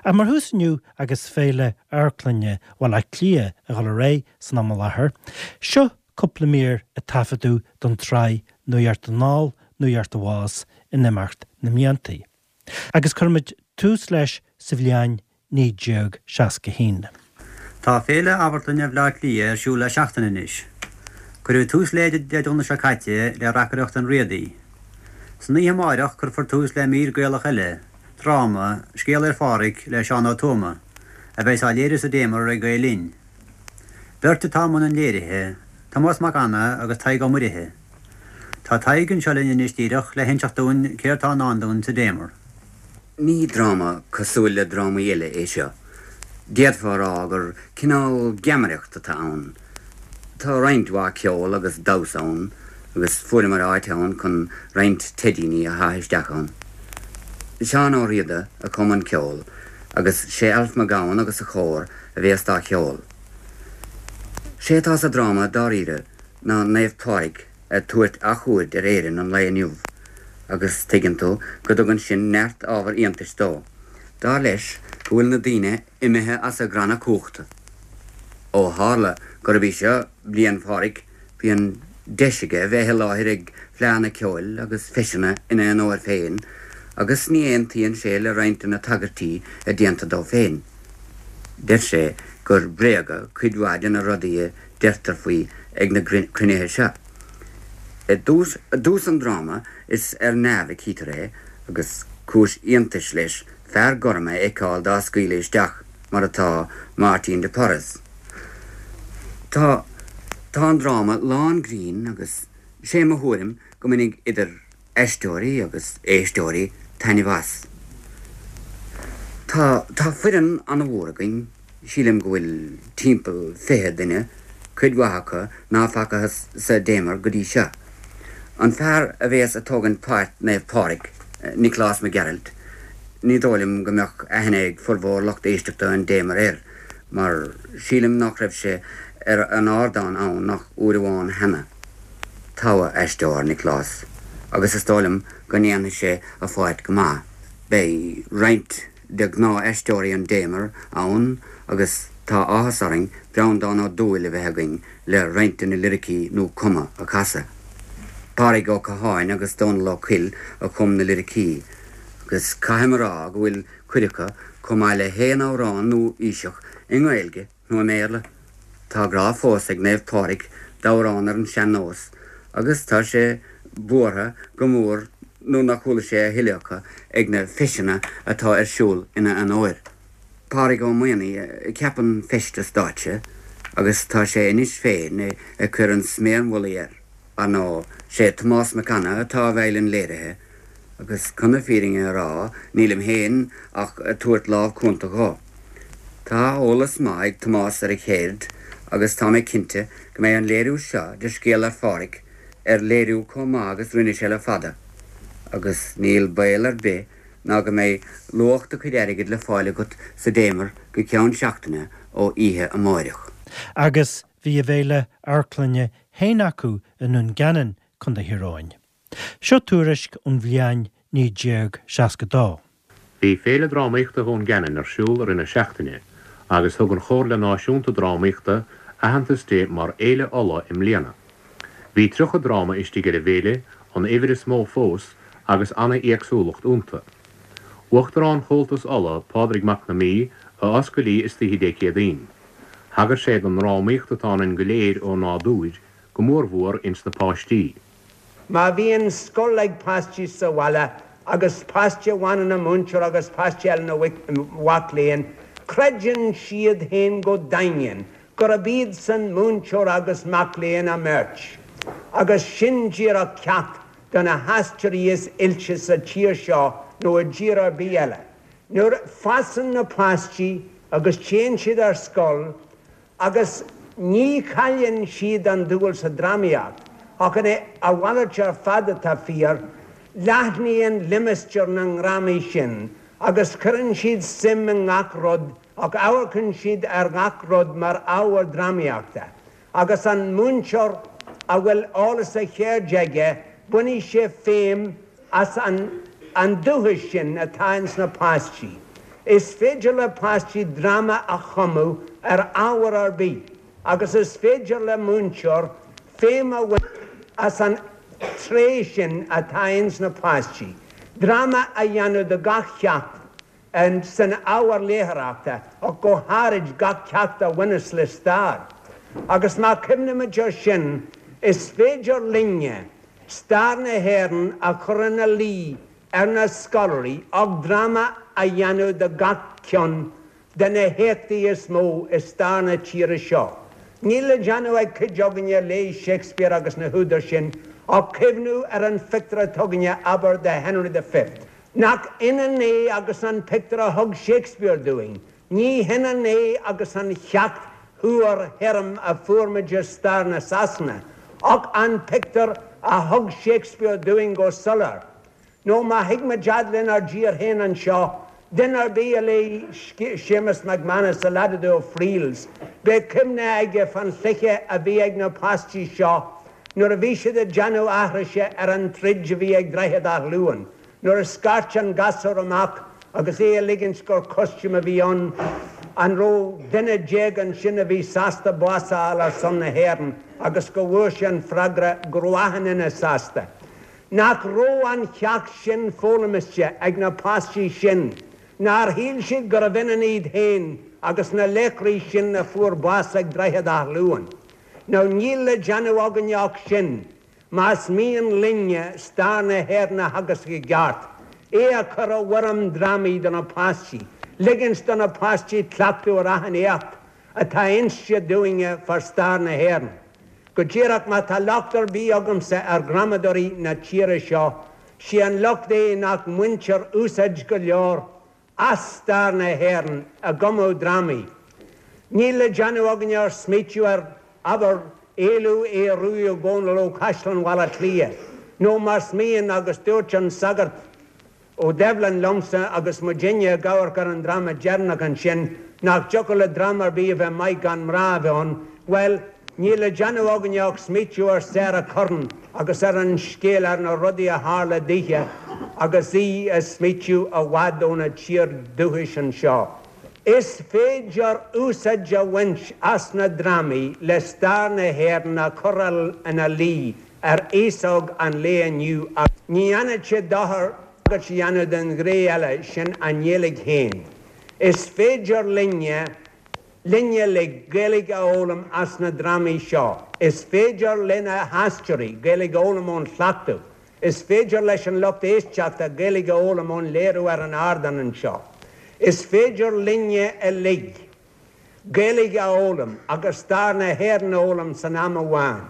Ach mar thús inniu agus Féile Amharclainne Bhaile Átha Cliath ag dul ar aghaidh san am i láthair, seo cúpla mír a taifeadadh don tsraith Nuacht Anall, Nuacht Abhus in imeacht na mblianta. Agus cuirfimid tús leis sa bhliain 1961. Tá Féile Amharclainne Bhaile Átha Cliath ar siúl le seachtain anois. Cuireadh tús léi Dé Domhnaigh seo caite le reacaireacht an Riadaigh. San oíche amáireach cuirfear tús le mír Gaelach eile, dráma, Scéal ar Phádhraic le Seán Ó Tuama, a bheas á léiriú sa Damer ag Gael Linn. Beirt atá i mbun an léirithe, Tomás Mac Anna agus Tadhg Ó Muirithe. Tá Tadhg anseo linn anois díreach le hinseacht dúinn céard tá i ndán dúinn sa Damer. Ní dráma cosúil le drámaí eile é seo. D'fhéadfá a rá gur cineál geamaireacht atá ann. Tá roinnt mhaith ceol agus damhsa ann agus fuaireamar áit ann chun roinnt teidíní a shá isteach ann. Seán Ó Riada a chum an ceol agus sé Alf Mac Gabhann agus a chór a bhéas dá cheol. Sé atá sa dráma dáiríre ná Naomh Pádraig ag tabhairt athchuaird ar Éirinn an lae inniu agus tuigeann tú go dtugann sin neart ábhar iontais dó. Dar leis go bhfuil na daoine imithe as a gcranna cumhachta. Ó tharla gurb í seo Bliain Phádraig bíonn deis aige bheith i láthair ag fleadhanna ceoil agus feiseanna ina onóir féin agus ní aontaíonn sé le roinnt de na tagairtí a déantar dó féin. Deir sé gur bréaga cuid mhaith de na rudaí a deirtear faoi ag na cruinnithe seo. I dtús an dráma is ar neamh a chítear é agus cúis iontais leis fear gorm a fheiceáil dá scaoileadh isteach mar atá Máirtín de Porres. Tá tá an dráma lán grinn agus sé mo thuairim go mbainfidh idir aisteoirí agus éisteoirí taitneamh as. Tá tá foireann an-mhór againn, sílim go bhfuil timpeall 20 duine, cuid mhaith acu ná facathas sa Damer go dtí seo. An fear a bhéas a' tógaint páirt Naomh Pádraig, Nioclás Mac Gearailt, ní dóigh liom go mbeadh aithne ag formhór lucht éisteachta an Damer air, mar sílim nach raibh sé ar an ardán ann ach uair amháin cheana. Togha aisteoir, Nioclás, agus is dóigh liom go ndéanfaidh sé a pháirt go maith. Beidh roinnt de ghnáth-aisteoirí an Damer ann agus tá áthas orainn Breandán Ó Dúill a bheith againn le roinnt de na liricí nua-chumtha a chasadh. Pádraig Ó Catháin agus Dónal Ó Cuill a chum na liricí agus caithim a rá go bhfuil cuid acu chomh maith le haon amhrán nua-aoiseach i nGaeilge nó i mBéarla. Tá grá fós ag Naomh Pádraig d'amhráin ar an sean-nós agus tá sé buartha go mór nuair nach chuala sé a thuilleadh acu ag na feiseanna atá ar siúl ina onóir. Pádraig Ó Maonaigh a cheap an feisteas stáitse agus tá sé anois féin ag cur an sméar mhullaigh air. Ar ndóigh, sé Tomás Mac Anna atá i bhfeighil an léirithe agus chun na fírinne a rá nílim féin ach ag tabhairt lámh cúnta dhó. Tá eolas maith ag Tomás ar a cheird agus tá mé cinnte go mbeidh an léiriú seo de Scéal Fhear Phádraig ar léiriú chomh maith agus rinne sé le fada agus níl baol ar bith ná go mbeidh luach do chuid airgid le fáil agat sa Damer go ceann seachtaine ó oíche amáireach. Agus bhí a bhféile amharclainne féin acu i nDún Geanainn, Co. Thír Eoghain. Seo tuairisc ón bhliain 1962. Bhí Féile Drámaíochta Dhún Geanainn ar siúl i rith na seachtaine agus thug an Chomhairle Náisiúnta Drámaíochta aitheantas di mar Fhéile Uladh i mbliana. Bhí 30 dráma istigh ar an bhféile, an uimhir is mó fós, agus ana-éagsúlacht iontu. Uachtarán Chomhaltas Uladh, Pádraig Mac na Mí, a oscail í istoíche Dé Céadaoin. Thagair sé don ndrámaíocht atá ionainn go léir ó nádúir, go mórmhór ins na páistí. Má bhíonn scoil ag páistí sa bhaile agus páiste amháin ina mhúinteoir agus páiste eile ina mhac léinn, creideann siad féin go daingean gurb iadsan múinteoir agus mac léinn a mbeirt. Agus sin díreach ceacht do na haisteoirí is oilte sa tír seo nó i dtír ar bith eile. Nuair a fásann na páistí agus téann siad ar scoil, Agus ní chailleann siad an dúil sa drámaíocht, ach a mhalairt ar fad atá fíor, leathnaíonn limistéar na ndrámaí sin agus cuireann siad suim i ngach rud ach amharcann siad ar ghach rud mar ábhar drámaíochta. Agus an múinteoir a bhfuil eolas a cheirde aige, bainfidh sé feidhm as an an dúchas sin atá ins na páistí. Is féidir le páistí dráma a chumadh ar ábhar ar bith agus is féidir le múinteoir feidhm a bhaint as an tréith sin atá ins na páistí, dráma a dhéanamh de gach ceacht san ábhar léitheoireachta ach go háirid gach ceacht a bhaineas le stair. Agus má chuimhnímid air sin, is féidir linne stair na hÉireann a chur ina luí ar na scoláirí ach dráma a dhéanamh de gach ceann de na héachtaí is mó i stair na tíre seo. Níl le déanamh ag cuid againne a léigh Shakespeare agus na húdair sin ach cuimhniú ar an phictiúr atá againne, abair, de Henry the Fifth. Nach ionann é agus an pictiúr a thug Shakespeare dúinn? Ní hionann é agus an cheacht fhuar thirim a fuair muid i stair na Sasana, ach an pictiúr a thug Shakespeare dúinn go soiléir. Nó má thig muid fhad lenár dtír féin anseo, duine ar bith a léigh Séamus McManus, The Lad o' Friels, beidh cuimhne aige fán chluiche a bhí ag na páistí seo nuair a bhí siad ag déanamh aithrise ar an troid a bhí ag Droichead Átha Luain, nuair a scairt an gasúr amach agus é ag ligint gur costume a bhí ann, an raibh duine déag ansin a bhí sásta bás a fháil ar son na hÉireann agus go bhfuair sé an freagra go raibh achan duine sásta. Nach raibh an cheacht sin foghlamiste ag na páistí sin? Nár shíl siad gurbh ionann iad féin agus na laochraí sin a fuair bás ag Droichead Átha Luain? Now níl le déanamh againne ach sin, más mian linne stair na hÉireann a theagasc i gceart, é a chur i bhfoirm drámaí do na páistí, ligint do na páistí cleachtadh ar achan éacht atá inste dúinne fá stair na hÉireann. Go díreach, má tá locht ar bith agamsa ar dhrámadóirí na tíre seo, sé an locht é nach mbaintear úsáid go leor as stair na hÉireann i gcumadh drámaí. Níl le déanamh againne ach smaoitiú ar, abair, éalú Aodh Ruadh Ó Dónaill ó Chaisleán Bhaile Átha Cliath, nó más mian, agus dúirt an sagart, Ó Doibhlin liomsa agus muidinne ag amharc ar an dráma deireanach ansin, nach dtiocfadh le dráma ar bith a bheith maith gan mná a bheith ann, bhuel, níl le déanamh againne ach smaoitiú ar Sarah Curran agus ar an scéal, ar na rudaí a tharla daoithe agus í ag smaoitiú i bhfad óna tír dúchais anseo. Is féidir úsáid a bhaint as na drámaí le stair na hÉireann a chur ina luí ar aos óg an lae inniu agus ní dhéanfadh sé dochar tagairt a dhéanamh don ghné eile, sin an nGaeilge féin. Is féidir linne, linn uilig, Gaeilge a fhoghlaim as na drámaí seo. Is féidir lena haisteoirí Gaeilge a fhoghlaim ón chleachtadh. Is féidir leis an lucht éisteachta Gaeilge a fhoghlaim ón léiriú ar an ardán anseo. Is féidir linne uilig Gaeilge a fhoghlaim agus stair na hÉireann a fhoghlaim san am amháin.